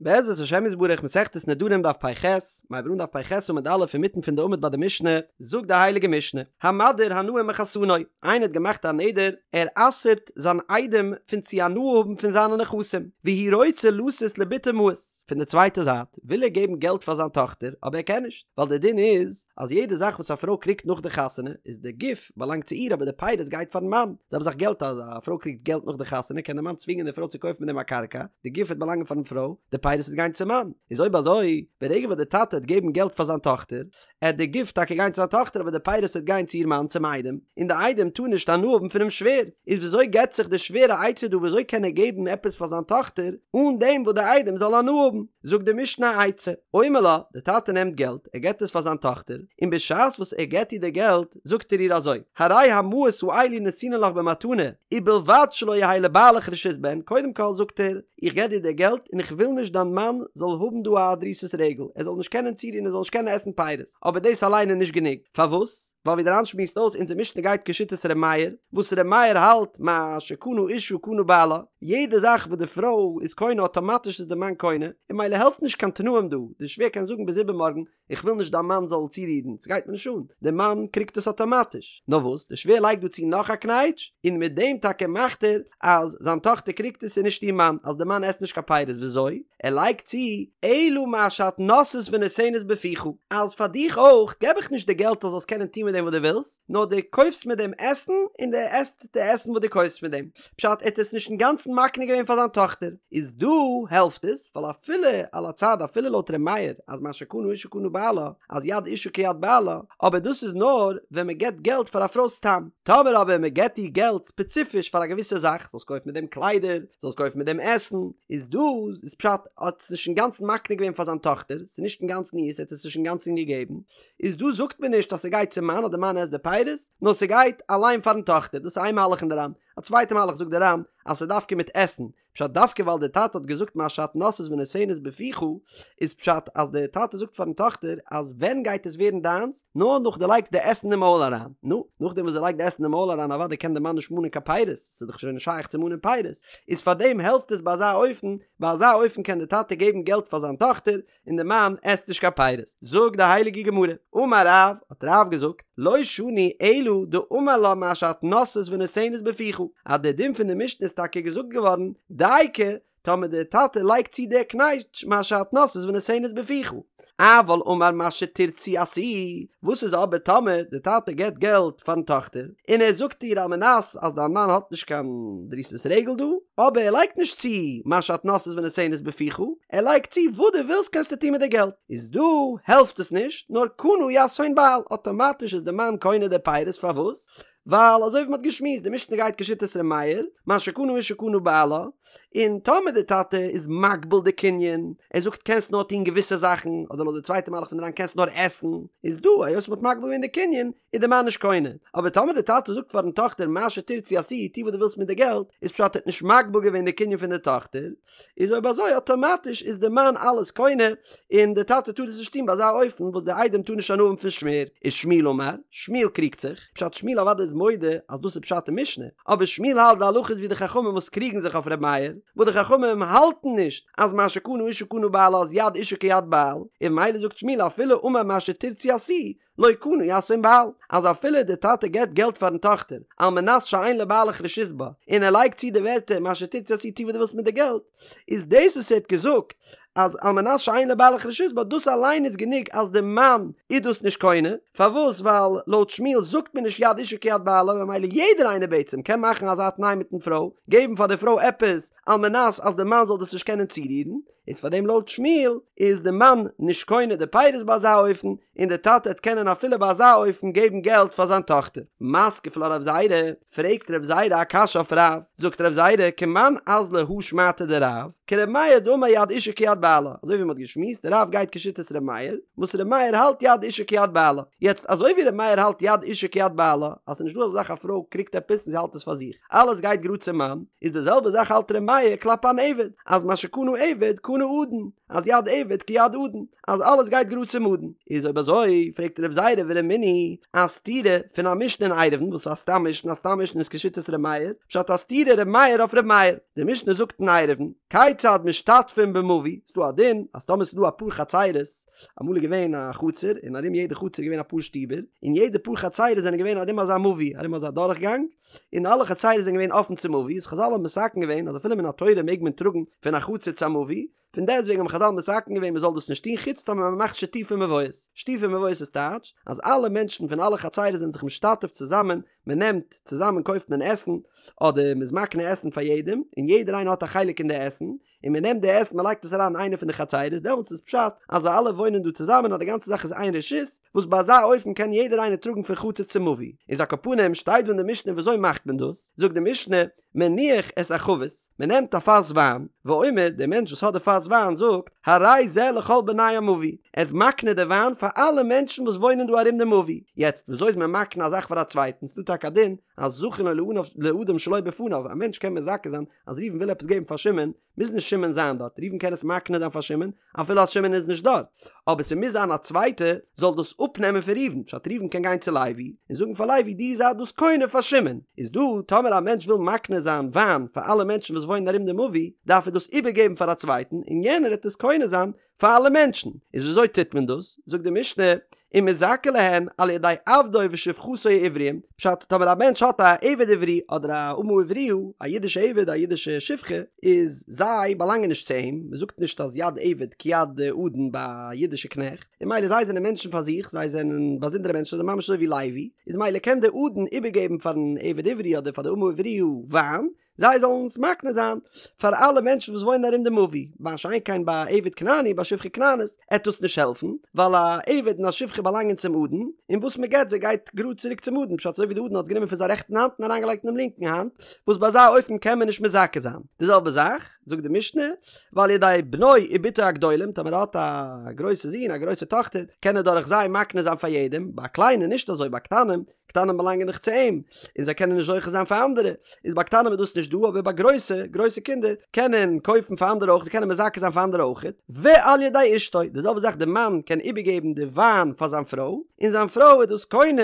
בעזרת השם יתברך מסכת נדרים דף פ"ח, מ'הייבט אן דף פ"ח עמוד א' אינמיטן פון די עמוד ביי די משנה, זאגט די הייליגע משנה, המדיר הנאה מחתנו, איינער האט געמאכט א נדר, ער אסר'ט זיין איידעם פון צו הנאה האבן פון זיינע נכסים, והוא רוצה לתת לבתו מעות, פון די צווייטע זייט וויל ער געבן געלט פאר זיין טאכטער אבער ער קען נישט, ווייל די דין איז אז יעדע זאך וואס א פרוי קריגט נאך די חתונה איז די גוף באלאנגט צו איר אבער די פירות גייט פארן מאן, זעלבע זאך געלט אז א פרוי קריגט געלט נאך די חתונה קען די מאן צווינגען די פרוי צו קויפן מיט דעם א קרקע, די גוף וועט באלאנגען פארן פרוי, די פירות וועט גיין צום מאן. איז אויב אזוי, ברגע וואס די טאטע העט געבן געלט פאר זיין טאכטער, עט די גוף טאקע גיין צו זיין טאכטער אבער די פירות וועט גיין צו איר מאן צום איידעם, און די איידעם טאר נישט הנאה האבן פונעם שווער. איז וויאזוי געבט זיך די שווער א עצה דא וויאזוי קען ער געבן עפעס פאר זיין טאכטער אן דעם וואס די איידעם זאל הנאה האבן? זאגט די משנה א עצה, אומר לה, די טאטע נעמט געלט, ער געבט עס פאר זיין טאכטער, און בשעת וואס ער געבט איר די געלט, זאגט ער איר אזוי, הרי המעות האלו נתונין לך במתנה, ובלבד שלא יהא לבעלך רשות בהן, קודם כל זאגט ער, איך געב דיר די געלט און איך וויל נישט דיין מאן זאל האבן דא א דריסת רגל, ער זאל נישט קענען צורירן ער זאל נישט קענען עסן פירות, אבער דאס אליין איז נישט גענוג, פארוואס? ווייל ווי דער ר"ן שמועסט אויס אונזער משנה גייט כשיטת ר' מאיר, וואס ר' מאיר האלט מה שקנה אשה קנה בעלה, יעדע זאך וואס די פרוי איז קונה אטאמאטיש איז די מאן קונה, און ממילא העלפט נישט קיין תנאים דא, די שווער קען זאגן ביז איבערמארגן איך וויל נישט דיין מאן זאל צורירן, ס'גייט מיר נישט אן, די מאן קריגט עס אטאמאטיש. נאר וואס, די שווער לייגט דא צו נאך א קנייטש, און מיט דעם טאקע מאכט ער אז זיין טאכטער קריגט עס און נישט איר מאן, אז די מאן עסט נישט קיין פירות, וויאזוי? ער לייגט צו, אלא מה שאת נושאת ונותנת בפיך, אז פאר דיך אויך געב איך נישט די געלט אז זאלסט קענען טון מיט דעם וואס דו ווילסט, נאר דו קויפסט מיט דעם עסן און דו עסט די עסן וואס דו קויפסט מיט דעם. פשט, ער האט עס נישט אינגאנצן מקנה געווען פאר זיין טאכטער, איז דא העלפט עס, ווייל אפילו על הצד אפילו לויט ר' מאיר אז מה שקנה אשה קנה בעלה, אז יד אשה כיד בעלה, אבער דאס איז נאר ווען מען געבט געלט פאר א פרוי סתם, טאמער אבער מען געבט איר געלט ספעציפיש פאר א געוויסע זאך, זאלסט קויפן מיט דעם קליידער, זאלסט קויפן מיט דעם עסן, איז דא איז פשט האט עס נישט אינגאנצן מקנה געווען פאר זיין טאכטער, ס'איז נישט אינגאנצן אירס, ער האט עס נישט אינגאנצן געגעבן, איז דא זאגט מען נישט אז ס'גייט צום מאן אז די מאן עסט די פירות, נאר ס'גייט אליין פארן טאכטער, דאס איז איין מהלך אין די ר"ן, א צווייטע מהלך זאגט די ר"ן אז ס'איז דווקא מיט עסן, פשט דווקא ווייל די טאטע האט געזאגט מה שאת נושאת ונותנת בפיך, איז פשט אז די טאטע זאגט פארן טאכטער אז ווען גייט עס ווערן דיינס, נאר נאך דו לייגסט די עסן אין מויל אריין, נו, נאכדעם וואס זי לייגט די עסן אין מויל אריין אוודאי קען די מאן נישט מאנען קיין פירות, ס'איז דאך שוין נישט שייך צו מאנען פירות, איז פארדעם העלפט עס ביי אזא אופן, ביי אזא אופן קען די טאטע געבן געלט פאר זיין טאכטער, און די מאן עסט נישט קיין פירות. זאגט די הייליגע גמרא, אמר רב, האט רב געזאגט, לא שנו אלא דאמר לה מה שאת נושאת ונותנת בפיך, אז די דין פון די משנה איז טאקע געזאגט געווארן דייקא טאמער די טאטע לייגט צו די קנייטש מה שאת נושאת ונותנת בפיך, אבל אמר מה שתרצי עשי, וואס איז אבער טאמער די טאטע געבט געלט פארן טאכטער און ער זאגט איר על מנת אז דיין מאן האט נישט קיין דריסת רגל דא, אבער ער לייגט נישט צו מה שאת נושאת ונותנת בפיך, ער לייגט צו וואס דו ווילסט קענסטו טון מיט די געלט, איז דא העלפט עס נישט, נאר קנה יתהון בעל, אטאמאטיש איז די מאן קונה די פירות, פארוואס? ווייל אזוי ווי מ'האט געשמועסט, די משנה גייט כשיטת ר' מאיר, מה שקנה אשה קנה בעלה, און טאמער די טאטע איז מגביל די קנין, ער זאגט קענסט נאר טון געוויסע זאכן, אדער לויט די צווייטע מהלך פון די ר"ן קענסט נאר עסן, איז דא היות מ'האט מגביל געווען די קנין, איז די מאן נישט קונה, אבער טאמער די טאטע זאגט פארן טאכטער מה שתרצי עשי, טו וואס דו ווילסט מיט די געלט, איז פשט ער האט נישט מגביל געווען די קנין פון די טאכטער, איז אויב אזוי אטאמאטיש איז די מאן אלעס קונה, און די טאטע טאר עס נישט טון ביי אזא אופן וואס די איידעם טאר נישט הנאה האבן פון שווער, איז שמואל אמר, שמואל קריגט זיך, פשט שמואל אוודאי איז מודה אז דאס איז פשט אין משנה, אבער שמואל האלט די הלכה איז ווי די חכמים וואס קריגן זיך אויף ר' מאיר, וואס די חכמים האלטן נישט אז מה שקנה אשה קנה בעלה אז יד אשה כיד בעל, און ממילא זאגט שמואל אפילו אמר מה שתרצי עשי, לא קנה יתהון בעל, אז אפילו די טאטע געבט געלט פארן טאכטער על מנת שאין לבעלך רשות בה, און ער לייגט צו די ווערטער מה שתרצי עשי טו וואס דו ווילסט מיט די געלט, איז דאס וואס ער האט געזאגט אז על מנת שאין לבעלך רשות בה דאס אליין איז גענוג אז די מאן איז דאס נישט קונה, פארוואס ווייל לויט שמואל זאגט מען נישט יד אשה כיד בעלה ממילא יעדער איינער בעצם קען מאכן אזא תנאי מיטן פרוי, געבן פאר די פרוי עפעס על מנת אז די מאן זאל דאס נישט קענען צורירן, איז פאר דעם לויט שמואל איז די מאן נישט קונה די פירות ביי אזא אופן, און די טאטע העט קענען אפילו ביי אזא אופן געבן געלט פאר זיין טאכטער. מתקיף לה רב זירא, פרעגט רב זירא א קשיא אויף רב, זאגט רב זירא כמאן אזלא הא שמעתא דרב, כר' מאיר דאמר יד אשה כיד בעלה, אזוי ווי מען האט געשמועסט רב גייט כשיטת ר' מאיר, וואס ר' מאיר האלט יד אשה כיד בעלה, יעצט אזוי ווי ר' מאיר האלט יד אשה כיד בעלה, אז ס'איז נישט דא אזא זאך א פרוי קריגט עפעס און זי האלט עס פאר זיך, אלעס גייט גראד צום מאן, איז די זעלבע זאך האלט ר' מאיר כלפי אן עבד, אז מה שקנה עבד קנה אדון, אז יד עבד כיד אדון, אז אלעס גייט גראד צום אדון, איז אויב אזוי פרעגט רב. זירא ורמינהו א סתירה פון א משנה אין עירובין וואס איז א סתם משנה, א סתם משנה איז כשיטת ר' מאיר, פשט א סתירה ר' מאיר אויף ר' מאיר, די משנה זאגט אין עירובין, כיצד משתתפין במבוי, ס'דא א דין אז טאמער ס'דא אפאר חצירות, אמאל איז געווען א חצר און ארום יעדע חצר איז געווען אפאר שטיבער, און יעדע פאר חצירות זענען געווען ארום אזא מבוי, ארום אזא דורכגאנג, און אלע חצירות זענען געווען אפן צום מבוי, איז חזל האבן מתקן געווען אז אפילו מן התורה מעג מען טראגן פון א חצר צו א מבוי, פון דעסטוועגן האבן חזל מתקן געווען מען זאל דאס נישט טון חוץ טאמער מען מאכט שיתופי מבואות, שיתופי מבואות איז טייטש אז אלע מענטשן פון אלע חצירות זענען זיך משתתף צוזאמען, מען נעמט צוזאמען קויפט מען עסן, אדער מען איז מקנה עסן פאר יעדעם, און יעדער איינער האט א חלק אין די עסן, און מען נעמט די עסן מען לייגט עס אריין אין איינע פון די חצירות, דעמאלטס איז פשט אז זיי אלע וואוינען דא צוזאמען אז די גאנצע זאך איז איין רשות, וואס ביי אזא אופן קען יעדער איינער טראגן פון חצר צו מבוי, איז על כל פנים שטייט דא אין די משנה וויאזוי מאכט מען דאס, זאגט די משנה, מניח את החבית, מען נעמט א פאס וויין, ואומר, דער מענטש וואס האט די פאס וויין זאגט, הרי זה לכל בני המבוי, ער איז מקנה די וויין פאר אלע מענטשן וואס וואוינען דא ארום די מבוי, יעצט וויאזוי איז מען מקנה א זאך פאר א צווייטן, ס'דא טאקע א דין אז זכין לו לאדם שלא בפניו, א מענטש קען מזכה זיין אז ראובן וויל עפעס געבן פאר שמעון, מוז נישט שמעון זיין דארט, ראובן קען עס מקנה זיין פאר שמעון אפילו אז שמעון איז נישט דארט, אבער ס'מוז זיין א צווייטע זאל דאס אפנעמען פון ראובן, פשט ראובן קען גיין צו לוי און זאגן פאר לוי דו זיי דאס קונה פאר שמעון, איז דא טאמער א מענטש וויל מקנה זיין וויין פאר אלע מענטשן וואס וואוינען ארום די מבוי, דארף ער דאס איבערגעבן פאר א צווייטן און יענער העט עס קונה זיין פאר אלע מענטשן, איז וויאזוי טוט מען דאס? זאגט די משנה, ומזכה להן על ידי עבדו ושפחתו העבריים, פשט, טאמער א מענטש האט א עבד עברי אדער א אמה עבריה, א אידישע עבד א אידישע שפחה, איז זיי באלאנגען נישט צו אים, מען זאגט נישט אז יד עבד כיד אדון ביי א אידישע קנעכט, און ממילא זיי זענען מענטשן פאר זיך, זיי זענען באזונדערע מענטשן, זיי זענען ממש אזוי ווי לוי, איז ממילא קען דער אדון איבערגעבן פארן עבד עברי אדער פאר די אמה עבריה וויין, זיי זאלן עס מקנה זיין פאר אלע מענטשן וואס וואוינען ארום די מבוי, מה שאין כן ביי א עבד כנעני ביי שפחה כנענית עט דאס נישט העלפן, ווייל א עבד און א שפחה באלאנגען צום אדון, און וואס מען געט זיי גייט גראד צוריק צום אדון, פשט אזוי ווי די אדון האט עס גענומען פון זיין רעכטן האנט און אריינגעלייגט אינעם לינקן האנט, וואס ביי אזא אופן קען מען נישט מזכה זיין. די זעלבע זאך, זאגט די משנה, ועל ידי בנו ובתו הגדולים, טאמער ער האט א גרויסע זון א גרויסע טאכטער, קען ער דורך זיי מקנה זיין פאר יעדעם, ביי קליינע נישט אזוי, ביי קטנים, קטנים באלאנגען דאך צו אים, און זיי קענען נישט זוכה זיין פאר אנדערע, איז ביי קטנים איז דאס נישט דא, אבער ביי גרויסע, גרויסע קינדער, קענען קויפן פאר אנדערע אויך, זיי קענען מזכה זיין פאר אנדערע אויך, ועל ידי אשתו, די זעלבע זאך די מאן קען איבערגעבן די וויין פאר זיין פרוי, און זיין פרוי איז דאס קונה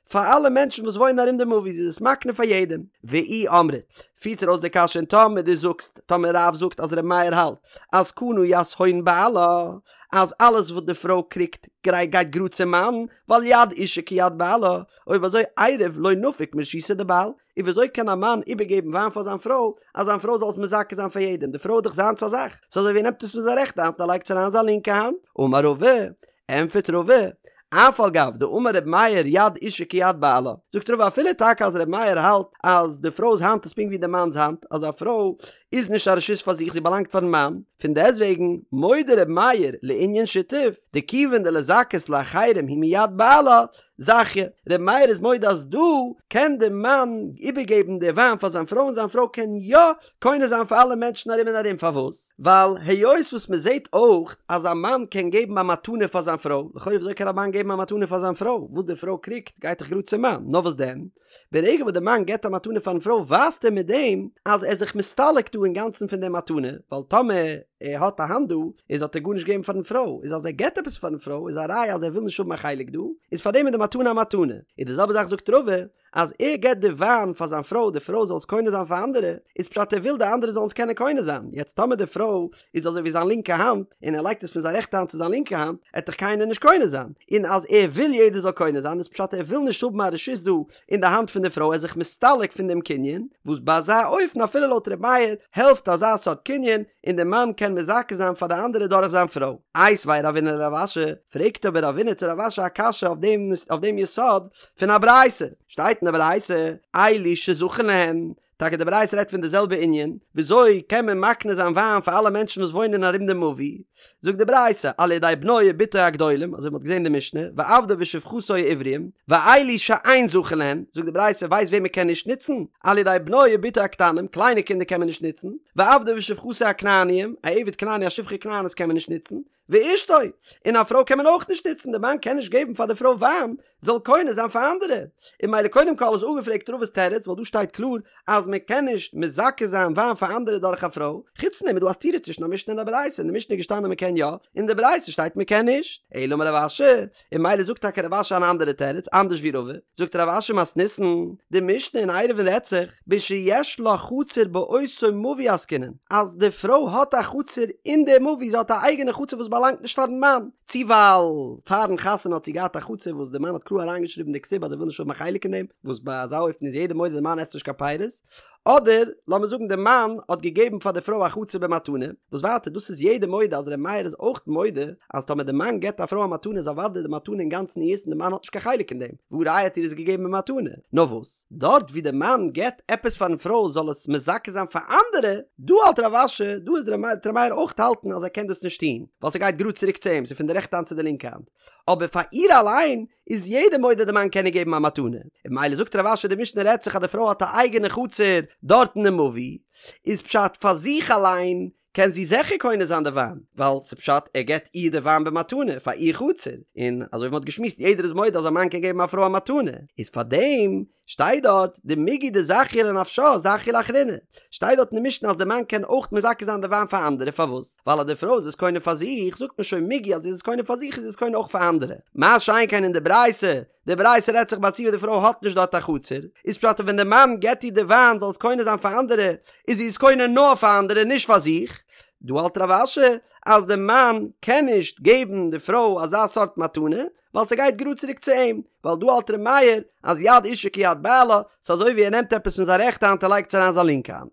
פאר אלע מענטשן וואס וואוינען ארום די מבוי, זי איז עס מקנה פאר יעדעם. ואי אמרת, פירט ער אויס די קשיא און טאמער דו זאגסט, טאמער רב זאגט אז ר' מאיר האלט אז קנה יתהון בעלה, אז אלעס וואס די פרוי קריגט גייט גראד צום מאן, ווייל יד אישה כיד בעלה, אויב אזוי עירב לא נפיק מרשותיה דבעל, און וויאזוי קען א מאן איבערגעבן וויין פאר זיין פרוי, אז זיין פרוי זאל עס מזכה זיין פאר יעדעם, די פרוי איז דאך זיינס א זאך, ס'איז אזוי ווי ער נעמט עס פון זיין רעכטע האנט און ער לייגט עס אריין אין זיין לינקע האנט, אמר רבא, ענטפערט רבא, אף על גב דאמר ר' מאיר יד אישה כיד בעלה, זאגט רבא אפילו טאקע אז ר' מאיר האלט אז די פרוי'ס האנט איז פונקט ווי די מאנ'ס האנט, אז א פרוי איז נישט א רשות פאר זיך זי באלאנגט פארן מאן, פון דעסטוועגן מודה ר' מאיר לענין שיתוף, דכיוון דלזכות לאחרים הוא מיד בעלה, זכיא, ר' מאיר איז מודה אז דא קען די מאן איבערגעבן די וויין פאר זיין פרוי און זיין פרוי קען יא קונה זיין פאר אלע מענטשן ארום און ארום, פארוואס? ווייל היות וואס מען זעט אויך אז א מאן קען געבן א מתנה פאר זיין פרוי, לכאורה וויאזוי קען א מאן געבן א מתנה פאר זיין פרוי, וואס די פרוי קריגט גייט דאך גראד צום מאן, נאר וואס דען? ברגע וואס די מאן געבט א מתנה פארן פרוי ווייזט ער מיט דעם אז ער איז זיך מסתלק דא אינגאנצן פון די מתנה, ווייל טאמער ער האט א האנט דא איז האט ער גארנישט געגעבן פארן פרוי, איז אז ער געבט עפעס פארן פרוי איז א ראיה אז ער וויל נישט האבן א חלק דא, איז פארדעם איז די מתנה א מתנה, איז די זעלבע זאך זאגט רבא, אז ער געבט די וויין פאר זיין פרוי די פרוי זאל עס קונה זיין פאר אנדערע, איז פשט ער וויל די אנדערע זאלן עס קענען קונה זיין, יעצט טאמער די פרוי איז אזוי ווי זיין לינקע האנט, און ער לייגט עס פון זיין רעכטע האנט צו זיין לינקע האנט, עט דאך קיינער נישט קונה זיין, און אז ער וויל יעדער זאל קונה זיין איז פשט ער וויל נישט האבן א רשות דא אין די האנט פון די פרוי ער איז זיך מסתלק פון דעם קנין, וואס ביי אזא אופן אפילו לויט ר' מאיר העלפט אזא סארט קנין, און די מאן קען מזכה זיין פאר די אנדערע דורך זיין פרוי. איתיביה רבינא לרב אשי, פרעגט אבער רבינא צו רב אשי א קשיא אויף דעם אויף דעם יסוד פון א ברייתא, שטייט אין די ברייתא, אלו שזכין להן, טאקע די ברייתא רעדט פון די זעלבע ענין, וויאזוי קען מען מקנה זיין וויין פאר אלע מענטשן וואס וואוינען ארום די מבוי, זאגט די ברייתא, על ידי בנו ובתו הגדולים, אזוי ווי מ'האט געזען אין די משנה, ועבדו ושפחתו העבריים, ואלו שאין זכין להן, זאגט די ברייתא, ווייסט וועם מ'קען נישט נוצן? על ידי בנו ובתו הקטנים, קליינע קינדער קען מען נישט נוצן, ועבדו ושפחתו הכנעניים, א עבד כנעני א שפחה כנענית קען מען נישט נוצן, ואשתו, און א פרוי קען מען אויך נישט נוצן, די מאן קען נישט געבן פאר די פרוי וויין זאל קונה זיין פאר אנדערע, און ממילא קודם כל איז אפגעפרעגט רבא'ס תירוץ ווייל דא שטייט קלאר אז. מען קען נישט מזכה זיין וויין פאר אנדערע דורך א פרוי, חוץ פון דעם איז דא א סתירה צווישן א משנה און א ברייתא, אין די משנה איז געשטאנען מען קען יא, אין די ברייתא שטייט מען קען נישט, אלא אמר רב אשי, און ממילא זאגט טאקע רב אשי אן אנדערע תירוץ, אנדערש ווי רבא, זאגט רב אשי מתניתין, די משנה אין עירובין רעדט זיך, בשיש לה חצר באותו מבוי עסקינן, אז די פרוי האט א חצר אין די מבוי, זי האט א אייגענע חצר וואס באלאנגט נישט פארן מאן, צו ווייל פארן חתונה האט זי געהאט א חצר וואס די מאן האט קלאר אריינגעשריבן אין די כתובה אז ער וויל נישט האבן א חלק אין דעם, וואס ביי אזא אופן איז יעדער מודה די מאן עסט נישט קיין פירות, אדער לאמיר זאגן די מאן האט געגעבן פאר די פרוי א חצר במתנה, וואס ווייטער דאס איז יעדער מודה אז ר' מאיר איז אויך מודה אז טאמער די מאן געבט א פרוי א מתנה איז אוודאי די מתנה אינגאנצן אירס און די מאן האט נישט קיין חלק אין דעם, והא ראיה האט איר עס געגעבן במתנה, נאר וואס דארט ווי די מאן געבט עפעס פארן פרוי זאל עס מזכה זיין פאר אנדערע, דא האלט רב אשי, דא איז ר' מאיר אויך האלטן אז ער קען דאס נישט טון, ווייל ס'גייט גראד צוריק צו אים, ס'איז פון די רעכטע האנט צו די לינקע האנט, אבער פאר איר אליין איז יעדער מודה די מאן קען איר געבן א מתנה, און ממילא זאגט רב אשי די משנה רעדט זיך אז די פרוי האט א אייגענע חצר דארטן אין מבוי, איז פשט פאר זיך אליין קען זי זיכער קונה זיין די וויין, ווייל ס'פשט ער געבט איר די וויין במתנה פאר איר חצר, און אזוי ווי מ'האט געשמועסט יעדער איז מודה אז א מאן קען געבן א פרוי א מתנה, איז פארדעם שטייט דארט דמיגו דזכיא לנפשה זכיא לאחריני, שטייט דארט אין די משנה אז די מאן קען אויך מזכה זיין די וויין פאר אנדערע, פארוואס? ווייל אז די פרוי איז עס קונה פאר זיך, זאגט מען שוין מיגו אז זי איז עס קונה פאר זיך איז זי עס קונה אויך פאר אנדערע, מה שאין כן אין די ברייתא, די ברייתא רעדט זיך ביי א ציור די פרוי האט נישט דארט א חצר, איז פשט אז ווען די מאן געבט איר די וויין זאל עס קונה זיין פאר אנדערע, איז זי עס קונה נאר פאר אנדערע נישט פאר זיך, דא האלט רב אשי אז די מאן קען נישט געבן די פרוי אזא סארט מתנה, ווייל ס'גייט גראד צוריק צו אים, ווייל דא האלט ר' מאיר אז יד אישה כיד בעלה, ס'אזוי ווי ער נעמט עפעס פון זיין רעכטע האנט און לייגט עס אריין זיין לינקע האנט.